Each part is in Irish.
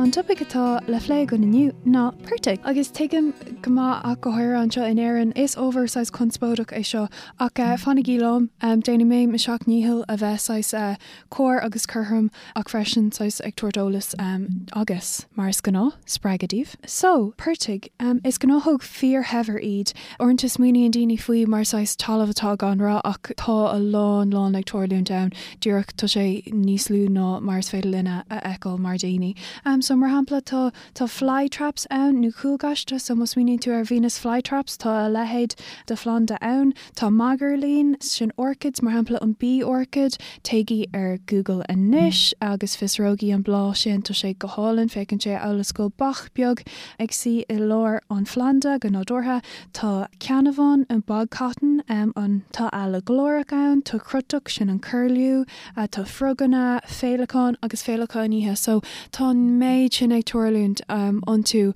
An topaic atá le phlé againn inniu ná portaigh. Agus tuigim go maith ach go háirithe anseo in Éirinn, is ábhar saghas conspóideach é seo ach fanaigí liom, déanfaidh mé mo sheacht ndícheall a bheith saghas cóir agus cothrom ach freisin saghas ag tabhairt eolas agus, mar is gnáth, spreagadh daoibh. So, portaigh. Is gnáthóg fíorshaibhir iad. Uaireanta smaoiníonn daoine faoi mar saghas talamh atá gan rath ach tá a lán lán ag tarlúint ann, díreach tá sé níos lú ná mar is féidir linne a fheiceáil mar daoine. So, mar shampla, tá tá fly traps ann nó cúlghaiste, so má smaoiníonn tú ar Venus fly traps tá a leithéid de phlanda ann. Tá magairlín, sin orchids, mar shampla an bee orchid, téigí ar Google anois agus fiosróigí an bláth sin, tá sé go hálainn, féachann sé amhail is go bhfuil beach beag ag suí i lár an phlanda go nádúrtha. Tá ceannabhán, an bog cotton, ann, tá eala ghlórach ann, tá crotach, sin an curlew, tá froganna, féileacáin agus féileacáin oíche. So tá an méid sin ag tarlúint iontu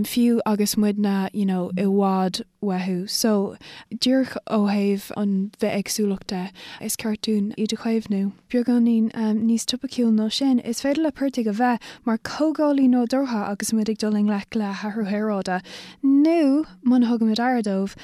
fiú agus muidne you know i bhfad uathu. So díreach ó thaobh an bhithéagsúlacht de, is ceart dúinn iad a chaomhnú. Beagáinín níos topaiciúil ná sin, is féidir le portaigh a bheith mar chóireálaí nádúrtha agus muid ag dul i ngleic le hathrú aeráide, nó muna thugaimid aire dóibh,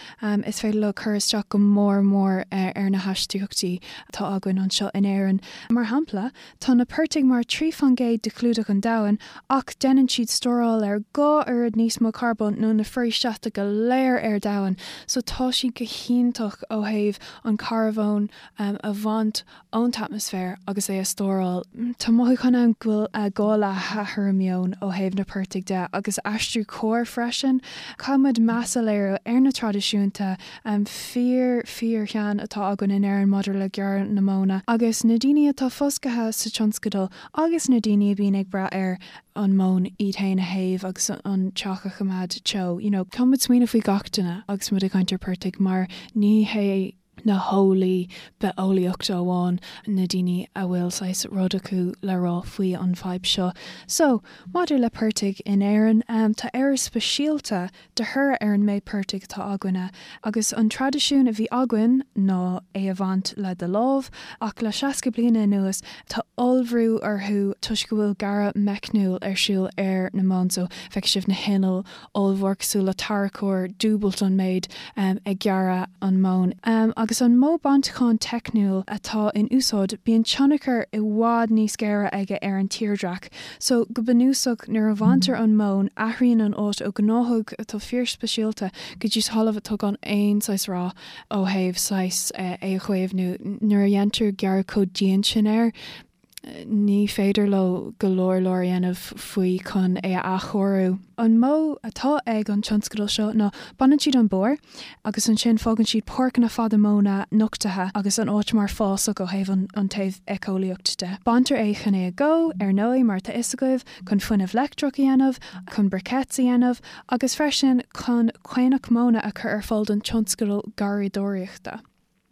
is féidir leo cur isteach go mór mór ar na hastaíochtaí atá againn anseo in Éirinn. Mar shampla, tá na portaigh mar 3% de chlúdach an domhain, ach déanann siad stóráil ar 2 oiread níos mó carbóin ná na foraoisí seasta go léir ar domhan, so tá siad go hiontach ó thaobh an carbón a bhaint ón t-atmaisféar agus é a stóráil. Tá mothúchán ann go bhfuil gá le hathrú meoin ó thaobh na portaigh de agus aistriú cóir freisin. Caithfidh muid meas a léiriú ar na traidisiúnta fíor fíor-shean atá againn in Éirinn maidir le gearradh na móna agus na daoine atá fostaithe sa tionscadal agus na daoine a bhíonn ag brath ar an móin iad féin a théamh agus an teach a choimeád teo. You know, caithfidh muid smaoineamh faoi gach duine agus muid ag caint ar portaigh mar ní hé na heolaí bitheolaíochta amháin na daoine a bhfuil saghas rud acu le rá faoi an bhfadhb seo. So, maidir le portaigh in Éirinn, tá Éire speisialta de thoradh ar an méid portaigh atá againne, agus an traidisiún a bhí againn ná é a bhaint le do lámh, ach le 60 bliana anuas tá ollbhrú orthu toisc go bhfuil gearradh meicniúil ar siúl ar na móin, so feicfidh sibh na hinnill ollmhór cosúil le tarracóir, dúbailt an méid ag gearradh an mhóin. Agus an modh bainteacháin teicniúil atá in úsáid, bíonn tionchar i bhfad níos géire aige ar an tírdhreach. So, go bunúsach, nuair a bhaintear an mhóin, athraíonn an áit ó ghnáthóg atá fíorspeisialta go dtí talamh atá gan aon saghas rath ó thaobh saghas é a chaomhnú. Nuair a dhéantar gearradh chomh dian sin air, ní féidir leo go leor leor a dhéanamh faoi chun é a athchóiriú. An modh atá ag an tionscadal seo ná baineann siad an barr agus ansin fágann siad páirceanna fada móna nochtaithe agus an áit mar fásach ó thaobh an taobh éiceolaíocht de. Baintear é chun é a dhó, ar ndóigh, mar atá fhios agaibh, chun fuinneamh leictreach a dhéanamh, chun briquettes a dhéanamh agus freisin chun caonach móna a chur ar fáil don tionscadal garraíodóireachta.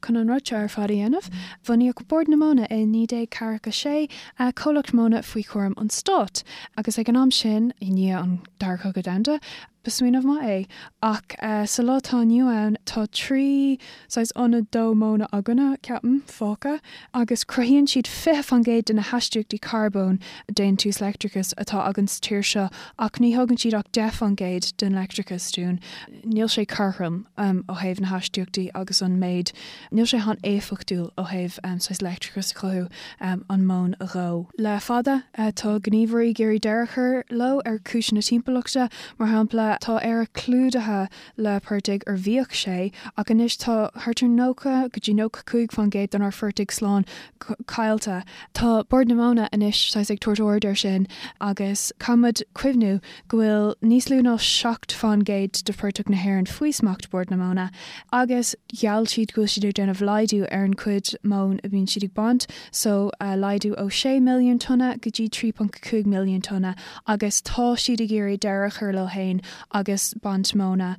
Chun an rud seo ar fad a dhéanamh, bunaíodh Bord na Móna i 1946, comhlacht móna faoi chúram an stáit, agus ag an am sin, i ndiaidh an Dara Cogadh Domhanda, ba smaoineamh maith é. Ach sa lá atá inniu ann, tá 3 saghas ionad dó móna againne, ceapaim, fágtha, agus cruthaíonn siad 20% de na hastaíochtaí carbóin, déantús leictreachais, atá againn sa tír seo, ach ní thugann siad ach 10% den leictreachas dúinn. Níl sé cothrom ó thaobh na hastaíochtaí agus an méid, níl sé an-éifeachtúil ó thaobh saghas leictreachas a chothú, an mhóin a dhó. Le fada, tá gníomhairí ag iarraidh deireadh a chur leo ar chúiseanna timpeallachta. Mar shampla, tá Éire clúdaithe le portaigh, or bhíodh sé, ach anois tá thart ar 90 go dtí 95% denár phortaigh slán caillte. Tá Bord na Móna anois saghas ag tabhairt aird air sin agus caithfidh muid cuimhniú go bhfuil níos lú ná 7% de phortach na hÉireann faoi smacht Bord na Móna agus gheall siad go bhfuil siad ag déanamh laghdú ar an chuid móin a bhíonn siad ag baint, so laghdú ó 6 milliún tonna go dtí 3.5 milliún tonna agus tá siad ag iarraidh deireadh a chur leo féin agus baint móna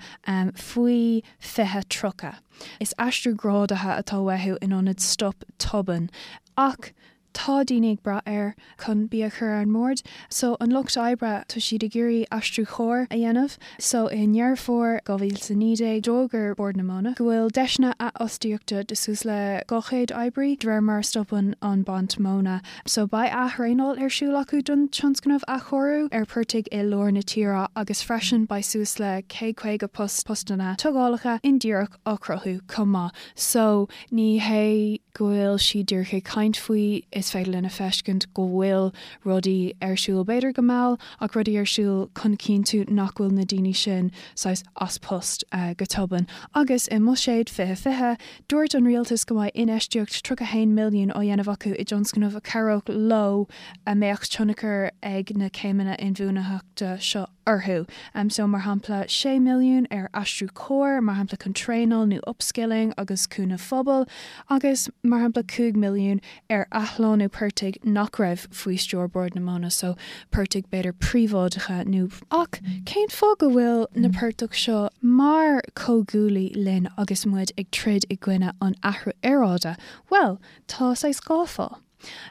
faoi 2030. Is aistriú grádaithe atá uathu in ionad stop tobann ach. Tá daoine ag brath air chun bia a chur ar an mbord. So an lucht oibre, tá siad ag iarraidh aistriú chóir a dhéanamh. So i nDeireadh Fómhair 2019, d'fhógair Bord na Móna go bhfuil deiseanna athfhostaíochta de suas le 200 oibrí de réir mar a stopann an baint móna. So beidh ath-thraenáil ar siúl acu don tionscnamh athchóiriú ar portaigh i lár na tíre agus freisin beidh suas le 150 post postanna tógálacha indíreach á cruthú chomh maith. So ní hé go bhfuil siad díreach ag caint faoi, is féidir linn a feiscint go bhfuil rudaí ar siúl, b'fhéidir go mall, ach rudaí ar siúl chun cinntiú nach bhfuil na daoine sin saghas as post go tobann. Agus i mBuiséad 2020, dúirt an rialtas go mbeidh infheistíocht 31 milliún á dhéanamh acu i dtionscnamh a chabhródh leo a mbeadh tionchar ag na céimeanna inbhuanaitheachta seo orthu. So, mar shampla, 6 milliún ar aistriú cóir, mar shampla chun traenáil nó upskilling agus cúnamh phobail, agus, mar shampla, 5 milliún ar athshlánú portaigh nach raibh faoi stiúir Bord na Móna, so portaigh b'fhéidir príobháideacha nó. Ach cén fáth go bhfuil na portaigh seo mar chomhghuaillí linn agus muid ag troid i gcoinne an athrú aeráide? Bhuel, tá saghas dhá fáth.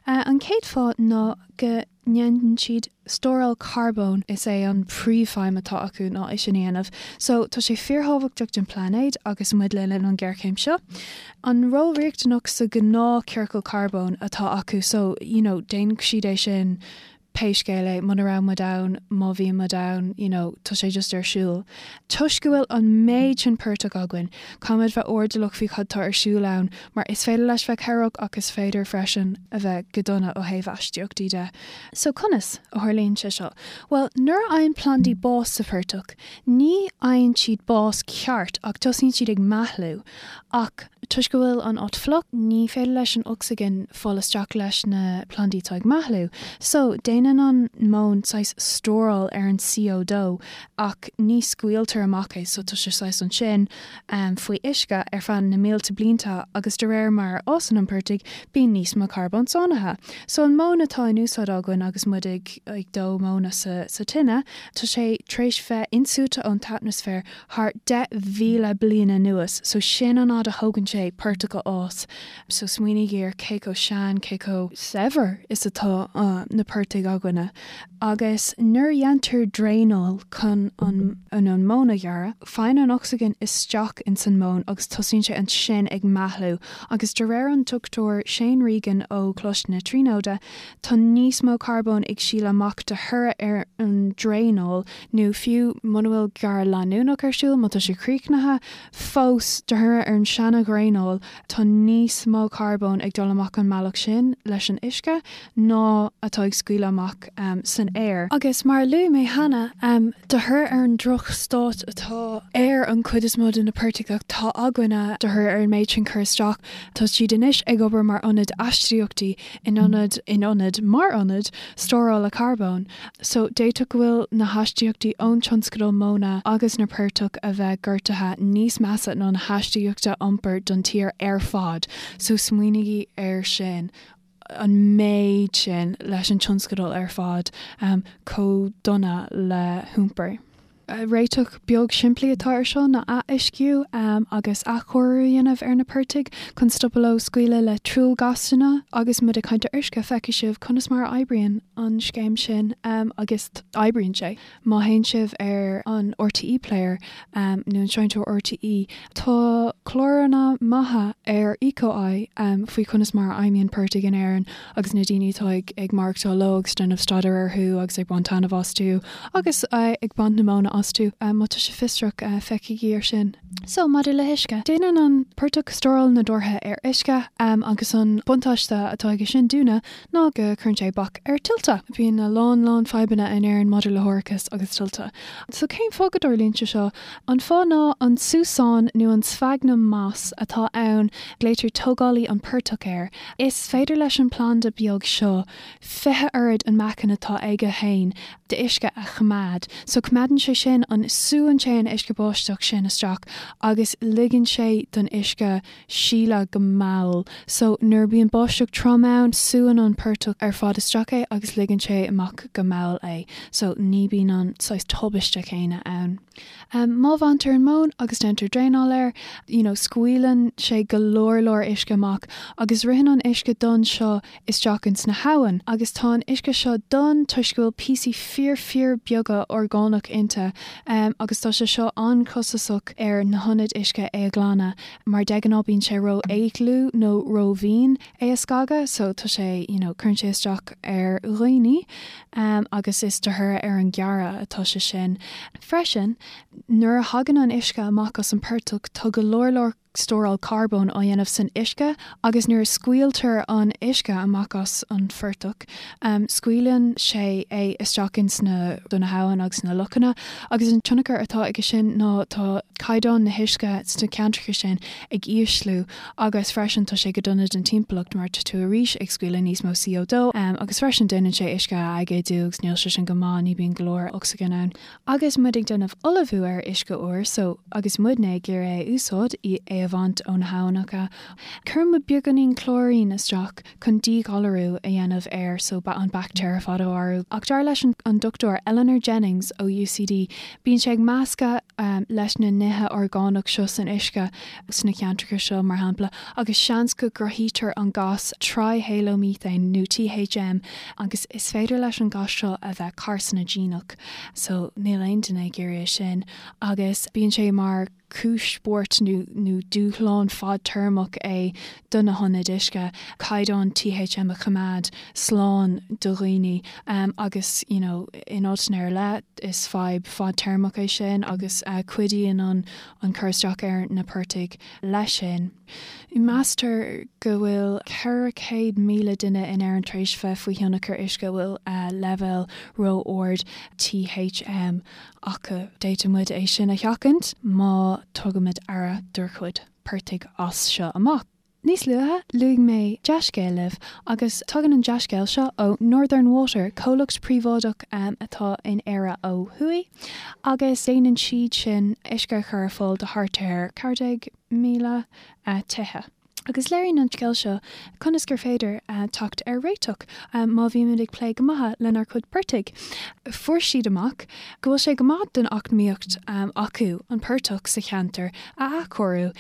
An chéad fáth ná go ndéanann siad stóráil carbóin, is é an príomhfheidhm atá acu ná é sin a dhéanamh. So, tá sé fíorthábhachtach don phláinéad agus muid le linn an ghéarchéim seo. An ról riachtanach sa ghnáth ciorcal carbóin atá acu, so, you know, déanfaidh siad é sin pé scéal é, muna raibh muid ann, má bhíonn muid ann, you know, tá sé just ar siúl. Toisc go bhfuil an méid sin portach againn, caithfimid bheith airdeallach faoi cad tá ar siúl ann, mar is féidir leis bheith cabhrach ach is féidir freisin a bheith go dona ó thaobh astaíochtaí de. So conas a tharlaíonn sé seo? Bhuel, nuair a fhaigheann plandaí bás sa phortach, ní fhaigheann siad bás ceart ach tosaíonn siad ag meathlú. Ach toisc go bhfuil an áit fliuch, ní féidir leis an ocsaigin fáil isteach leis na plandaí atá ag meathlú. So, déanann an mhóin saghas stóráil ar an CO2 ach ní scaoiltear amach é, so tá sé saghas ansin faoi uisce ar feadh na mílte blianta agus de réir mar a fhásann an portaigh, bíonn níos mó carbóin sáinnithe. So an mhóin atá in úsáid againn agus muid ag ag dó móna sa tine, tá sé tar éis bheith insúite ón t-atmaisféar thar 10,000 bliain anuas, so sin an fhad a thógann sé portach a fhás. So smaoinígí ar cé chomh sean, cé chomh saibhir is atá na portaigh againne. Agus nuair a dhéantar draenáil chun an an mhóin a ghearradh, faigheann an ocsaigin isteach ins an móin agus tosaíonn sé ansin ag meathlú. Agus de réir an Dr Shane Regan ó Choláiste na Tríonóide, tá níos mó carbóin ag sileadh amach de thoradh ar an draenáil nó fiú muna bhfuil gearradh leanúnach ar siúl, má tá sé críochnaithe, fós, de thoradh ar an seana-dhraenáil, tá níos mó carbóin ag dul amach an mbealach sin leis an uisce ná atá ag scaoileadh amach san aer. Agus mar a luaigh mé cheana, de thoradh ar an droch-stát atá ar an chuid is mó de na portaigh atá againne, de thoradh ar an méid sin cur isteach, tá siad anois ag obair mar ionad astaíochtaí in ionad, in ionad, mar ionad stórála carbóin. So, d'fhéadfadh go bhfuil na hastaíochtaí ón tionscadal móna agus na portach a bheith gortaithe níos measa ná na hastaíochta iompair don tír ar fad. So, smaoinígí air sin, an méid sin leis an tionscadal ar fad, chomh dona le hiompar. Réiteach beag simplí atá ar seo ná ath-uisciú agus athchóiriú a dhéanamh ar na portaigh chun stopadh leo scaoileadh le truaillghásanna. Agus muid ag caint ar uisce, feicfidh sibh conas mar a oibríonn an scéim sin agus oibríonn sé. Má théann sibh ar an RTÉ Player nó an seinnteoir RTÉ, tá cláranna maithe ar Eco-Eye faoi conas mar a fheidhmíonn portaigh in Éirinn agus na daoine atá ag maireachtáil leo agus déanamh staidéar orthu agus ag baint taitneamh astu agus ag baint na móna astu. Má tá sibh fiosrach, féachaigí ar sin. So, maidir le huisce, déanann an portach stóráil nádúrtha ar uisce agus an buntáiste atá aige sin dúinne ná go cuireann sé bac ar tuilte. Bíonn a lán lán fadhbanna in Éirinn maidir le hárachas agus tuilte. So cén fáth go dtarlaíonn sé seo? An fáth ná an súsán nó an sphagnum moss atá ann, glaoitear tógálaí an portach air. Is féidir leis an planda beag seo 20 oiread an meáchan atá aige féin d'uisce a choimeád. So coimeádann sé sin. sin an súann sé an uisce báisteach sin isteach agus ligeann sé don uisce sileadh go mall. So nuair a bíonn báisteach trom ann, súann an portach ar fad isteach é agus ligeann sé amach go mall é. So ní bíonn an saghas tubaiste céanna ann. Má bhaintear an mhóin agus déantar draenáil air, you know, scaoileann sé go leor leor uisce amach agus ritheann an uisce donn seo isteach ins na habhann agus tá an uisce seo donn toisc go bhfuil píosaí fíor fíor beaga orgánach inti agus tá sé seo an-chostasach ar na hionaid uisce é a ghlanadh mar de ghnáth bíonn sé ró dhlúth nó ró mhín é a scagadh so tá sé you know cuireann sé isteach ar dhaoine agus is de thoradh ar an ghearradh atá sé sin. Freisin nuair a thagann an uisce amach as an portach tá go leor leor stóráil carbóin á dhéanamh san uisce agus nuair a scaoiltear an uisce amach as an phortach, scaoileann sé é isteach ins na na habhann agus na lochanna agus an tionchar atá aige sin ná tá caighdeán na huisce sna ceantracha sin ag ísliú agus freisin tá sé go dona don timpeallacht mar tá tú arís ag scaoileadh níos mó CO2 agus freisin déanann sé uisce a aigéadú agus níl sé sin go maith, ní bíonn go leor ocsaigin ann. Agus muid ag déanamh ullmhú ar uisce úr so agus muidne ag iarraidh é a úsáid, é a bhaint ó na habhannacha, cuireann muid beagáinín clóirín isteach chun díghalarú a dhéanamh air so an baictéar ar fad a mharú. Ach dar leis an Dr Eleanor Jennings ó UCD, bíonn sé ag meascadh leis na nithe orgánach seo san uisce sna ceantracha seo, mar shampla, agus seans go gcruthaítear an gas trihalomethane nó THM agus is féidir leis an gas seo a bheith carsanaigineach. So níl aon duine ag iarraidh é sin agus bíonn sé mar cúis buairt nó nó dúshlán fadtéarmach é do na hionaid uisce caighdeán THM a choimeád slán do dhaoine agus you know in áiteanna ar leith is fadhb fadtéarmach é sin agus cuidíonn an an cur isteach ar na portaigh leis sin. Meastar go bhfuil 400,000 duine in Éirinn tar éis bheith faoi thionchar uisce a bhfuil leibhéal ró-ard THM acu. D'fhéadfadh muid é sin a sheachaint má tugaimid aire dár gcuid portaigh as seo amach. Níos luaithe, luaigh mé dea-scéal libh, agus tagann an dea-scéal seo ó Northern Water, comhlacht príobháideach atá in Éire ó thuaidh, agus déanann siad sin uisce a chur ar fáil do thart ar 14,000 tithe. Agus léiríonn an scéal seo conas gur féidir teacht ar réiteach má bhímid ag plé go maith lenár gcuid portaigh. Fuair siad amach go bhfuil sé go maith don eacnamaíocht acu an portach sa cheantar a athchóiriú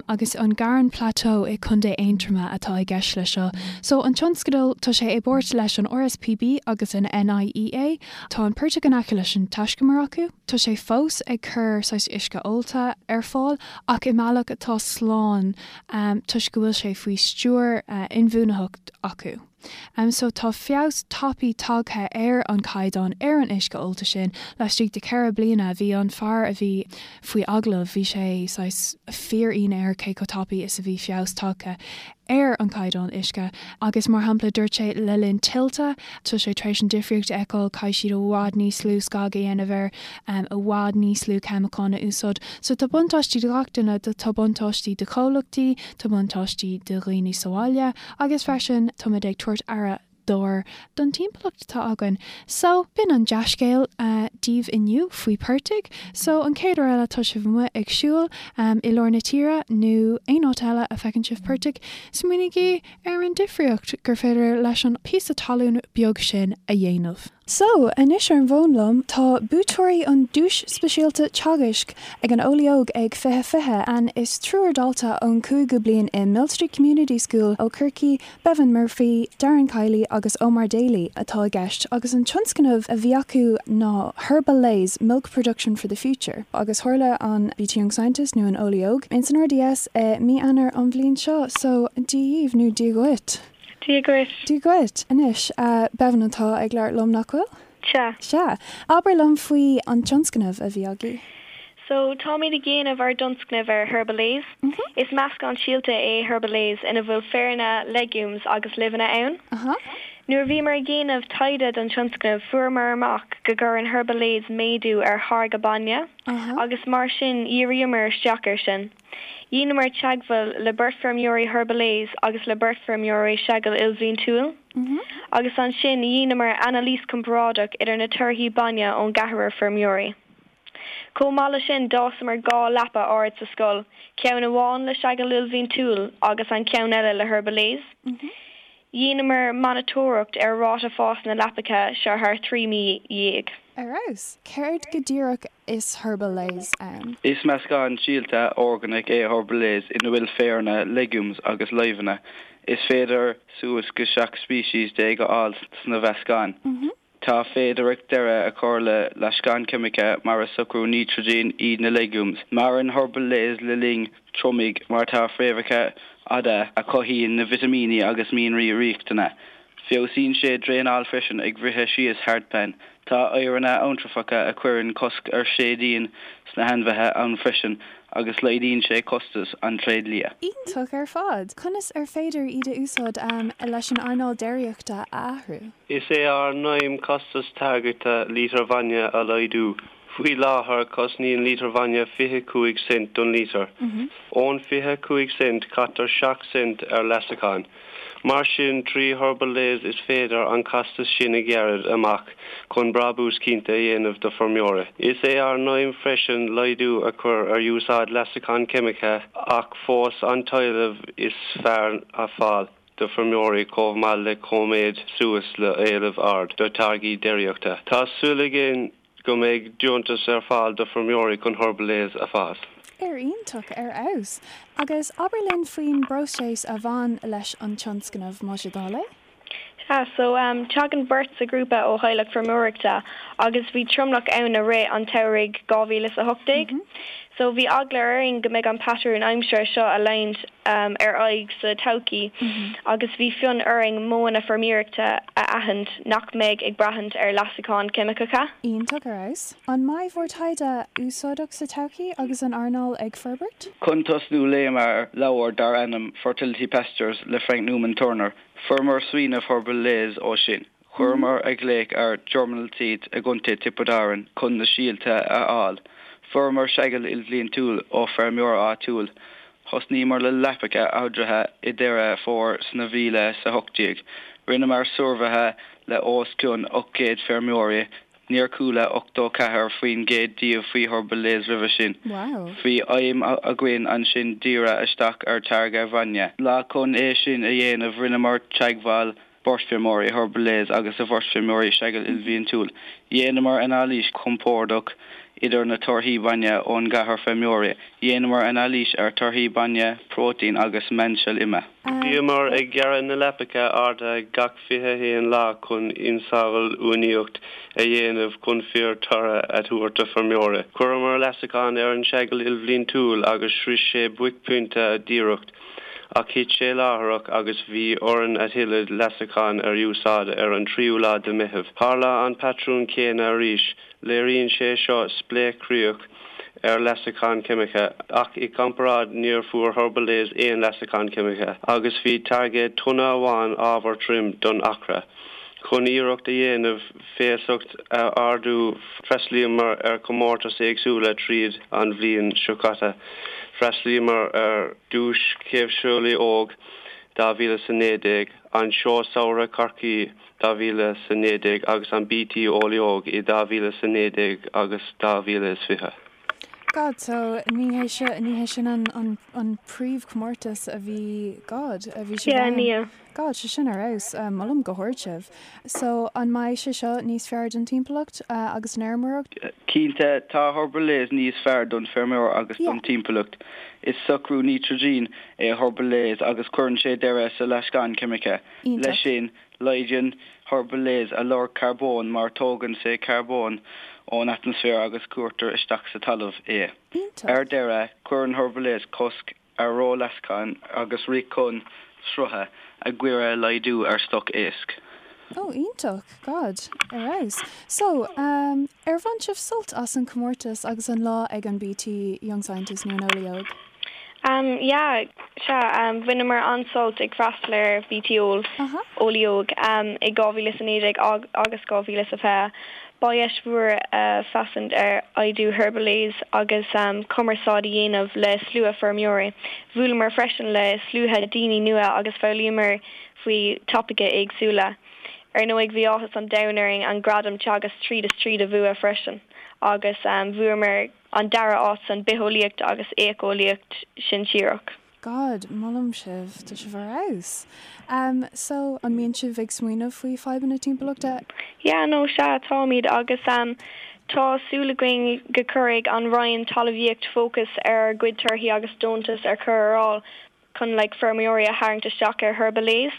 agus an Garron Plateau i Contae Aontroma atá i gceist leis seo. So an tionscadal, tá sé i bpáirt leis an RSPB agus an NIEA. Tá an portach in aice leis an taiscumar acu. Tá sé fós ag cur saghas uisce ólta ar fáil ach i mbealach atá slán toisc go bhfuil sé faoi stiúir inbhuanaitheacht acu. So tá feabhas tapaidh tagtha ar an chaighdeán ar an uisce ólta sin laistigh de cheithre bliana. Bhí an fear a bhí faoi agallamh, bhí sé saghas fíor-ionadh air cé chomh tapaidh is a bhí feabhas tagtha ar an chaighdeán uisce agus mar shampla dúirt sé le linn tuilte tá sé tar éis an difríocht a fheiceáil, caithfidh siad i bhfad níos lú scag a dhéanamh air, i bhfad níos lú ceimiceáin a úsáid. So tá buntáistí do gach duine, tá buntáistí do chomhlachtaí, tá buntáistí do dhaoine sa bhaile agus freisin táimid ag tabhairt aire dár don timpeallacht atá againn. So, b'in an dea-scéal daoibh inniu faoi portaigh. So, an chéad uair eile tá sibh amuigh ag siúl i lár na tíre nó aon áit eile a feiceann sibh portaigh, smaoinígí ar an difríocht gur féidir leis an píosa talún beag sin a dhéanamh. So, anois ar an bhfón liom tá buaiteoirí an Duais Speisialta Teagaisc ag an Eolaí Óg ag 2020, and is triúr dalta ón cúigiú bliain i Millstreet Community School ó Chorcaigh, Bevan Murphy, Darren Kiely agus Omar Daly atá i gceist agus an tionscnamh a bhí acu ná Herbalaise, Milk Production for the Future agus tharla an BT Young Scientist nó an Eolaí Óg ins an RDS i mí Eanáir an bhliain seo so Dia dhaoibh nó Dia dhuit. Dia dhuit. Dia dhuit. Anois, Bevan atá ag labhairt liom, nach bhfuil? Sea. Sea. Abair liom faoi an tionscnamh a bhí agaibh. So, táimid ag déanamh ár dtionscnamh ar Herbalaise. Is meascán síolta é Herbalaise ina bhfuil féaranna, legumes agus luibheanna ann. Nuair a bhíomar ag déanamh taighde don tionscnamh, fuaireamar amach go gcuireann Herbalaise méadú ar tháirgeadh bainne agus mar sin dhíríomar isteach air sin. Dheineamar teagmháil le beirt feirmeoirí Herbalaise agus le beirt feirmeoirí seagail ilbhliantúil agus ansin dheineamar anailís comparáideach idir na torthaí bainne ón gceathrar feirmeoirí. Chomh maith le sin d'fhásamar 2 leapa ard sa scoil, ceann amháin le seagal ilbhliantúil agus an ceann eile le Herbalaise. Dheineamar monatóireacht ar ráta fás na leapacha seo thar 13 mí. Ar fheabhas! Céard go díreach is Herbalaise ann? Is meascán síolta orgánach é Herbalaise ina bhfuil féaranna, legumes agus luibheanna. Is féidir suas go 17 speiceas a fháil sna mheascán. Tá féidearthacht deireadh a chur le leasacháin ceimice mar is socrú nítrigine iad na legumes. Maireann Herbalaise le linn triomaigh mar tá fréamhacha fhada a chothaíonn na vitimíní agus mianraí riachtanacha. Feabhsaíonn sé draenáil freisin ag bhriseadh síos hardpan. Tá oighearanna eantrafacha a chuireann cosc ar séideán sna hainmhithe ann freisin agus laghdaíonn sé costas an tréidlia. Iontach ar fad! Conas ar féidir iad a úsáid leis an earnáil déiríochta a athrú? Is é ár n-aidhm costas táirgeachta lítear bhainne a laghdú. Faoi láthair, cosnaíonn lítear bhainne 25 cent don lítear. Ón 25 cent, caitear 7 cent ar leasachán. Mar sin, trí Herbalaise is féidir an costas sin a ghearradh amach chun brabús cinnte a dhéanamh do feirmeoirí. Is é ár n-aidhm freisin laghdú a chur ar úsáid leasachán ceimice ach fós an t-éileamh is fearr a fáil do feirmeoirí chomh maith le coiméad suas le éileamh ard do táirgí déiríochta. Tá súil againn go mbeidh deontas ar fáil do feirmeoirí chun Herbalaise a fhás. Ar iontach, ar fheabhas. Agus abair linn faoin bpróiseas a bhain leis an tionscnamh, más é do thoil é? Sea, so tagann beirt sa ghrúpa ó theaghlach feirmeoireachta agus bhí tromlach ann i rith an tsamhraidh 2018. So bhí eagla orainn go mbeidh an patrún aimsire seo a leanúint ar aghaidh sa todhchaí agus bhí fonn orainn modhanna feirmeoireachta a aithint nach mbeidh ag braithint ar leasacháin cheimiceacha. Iontach ar fheabhas. An mbeidh bhur taighde úsáideach sa todhchaí agus an earnáil ag forbairt? Chun tosnú léamar leabhar dar ainm Fertility Pastures le Frank Newman Turner. Fuaireamar smaoineamh Herbalaise ó sin. Chuireamar ag glaoch ar Germinal Seeds i gContae Tiobraid Árann chun na síolta a fháil. Fuaireamar seagal ilbhliantúil ó feirmeoir áitiúil. Thosnaíomar le leapacha ardaithe i Deireadh Fómhair sna 2018. Rinneamar suirbhéithe le os cionn 800 feirmeoirí. Níor chuala 84% díobh faoi Herbalaise roimhe sin. Bhí aidhm againn ansin díriú isteach ar táirgeadh bhainne. Le chun é sin a dhéanamh rinneamar teagmháil beirt feirmeoirí Herbalaise agus a bheirt feirmeoirí seagal ilbhliantúil. Dhéanamar anailís chomparáideach idir na torthaí bainne ón gceathrar feirmeoirí. Dhéanamar anailís ar torthaí bainne, próitéin agus meánsel ime. Bhíomar ag gearradh na leapacha arda gach 21 lá chun ionsamhail uainíocht a dhéanamh chun fíor toradh a thabhairt do feirmeoirí. Chuireamar leasachán ar an seagal ilbhliantúil agus shroich sé buaicphointe díreach. Ach thit sé láithreach agus bhí orainn a thuilleadh leasachán ar úsáid ar an tríú lá de Meitheamh. Tharla an patrún céanna arís. Léiríonn sé seo spléachchríoch ar leasachán ceimice, ach i gcomparáid níor fuair Herbalaise aon leasachán ceimice agus bhí táirgeadh tonna amháin ábhar tirim don acra. Chun iarracht a dhéanamh feasacht a ardú freastalaíomar ar chomórtais éagsúla tríd an bhliain seo caite. Freastalaíomar ar Duais Chaomhseolaí Óg 2019, an Seó Samhraidh Chorcaí 2019 agus an BT Eolaí Óg i 2019 agus 2020. God, so ní hé seo, ní hé sin an, an, an príomhchomórtas a bhí, God, a bhí sibh Yeah, ann. níl. God, sé sin ar fheabhas. Molaim go hard sibh. So, an mbeidh sé seo níos fearr don timpeallacht agus an fheirmeoireacht? Cinnte, tá Herbalaise níos fearr don feirmeoir agus Yeah. don timpeallacht. Is socrú nítrigine é Herbalaise agus cuireann sé deireadh sa leasachán ceimice. Iontach. Leis sin, laghdaíonn Herbalaise a lorg carbóin mar tógann sé carbón ón atmaisféar agus cuirtear isteach sa talamh é. Iontach. Ar deireadh, cuireann Herbalaise cosc ar ró-leasachán agus rith chun srutha, a gcuireadh laghdú ar stoc éisc. Oh, iontach! God, ar fheabhas. So, um, ar bhain sibh sult as an chomórtas agus an lá ag an BT Young Scientist nó an Eolaí Óg? Um, yeah, sea, um, bhaineamar an-sult ag freastal ar BT Eol, Aha. Eolaí Óg, um, i 2019 agus 2020. Ba dheis mhór féachaint ar oibriú Herbalaise agus cumarsáid a dhéanamh le slua feirmeoirí. Bhuaileamar freisin le slua daoine nua agus foghlaimíomar faoi topaicí éagsúla. Ar ndóigh bhí áthas an domhain orainn an gradam Teagasc tríd is tríd a bhua freisin agus bhuamar an dara áit san Bitheolaíocht agus Éiceolaíocht Shinsearach. God, molaim sibh, tá sibh ar fheabhas. Um, so, an mbíonn sibh ag smaoineamh faoi fadhbanna timpeallachta? Yeah, no, sea, táimid agus um, tá súil againn go cuirfidh an Roinn Talmhaíocht fócas ar ár gcuid torthaí agus deontas ar chur ar fháil chun like feirmeoirí a tharraingt isteach ar Herbalaise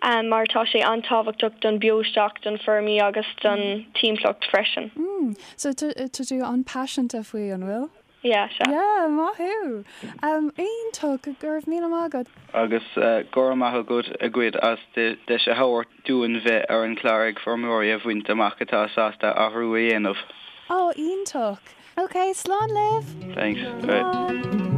um, mar tá sé an-tábhachtach don beostoc, don feirmí agus don timpeallacht freisin. Mm, so tá tú an-paiseanta faoi, an bhfuil? Yeah, sea. Yeah, maith thú! Iontach, go raibh míle maith agat. Agus go raibh maith agat agaibh as deis a thabhairt dúinn bheith ar an chlár Ag Feirmeoirí a bhaint amach atá sásta athrú a dhéanamh. Ó, iontach! Ok, slán libh! Thanks. Bye. Slán!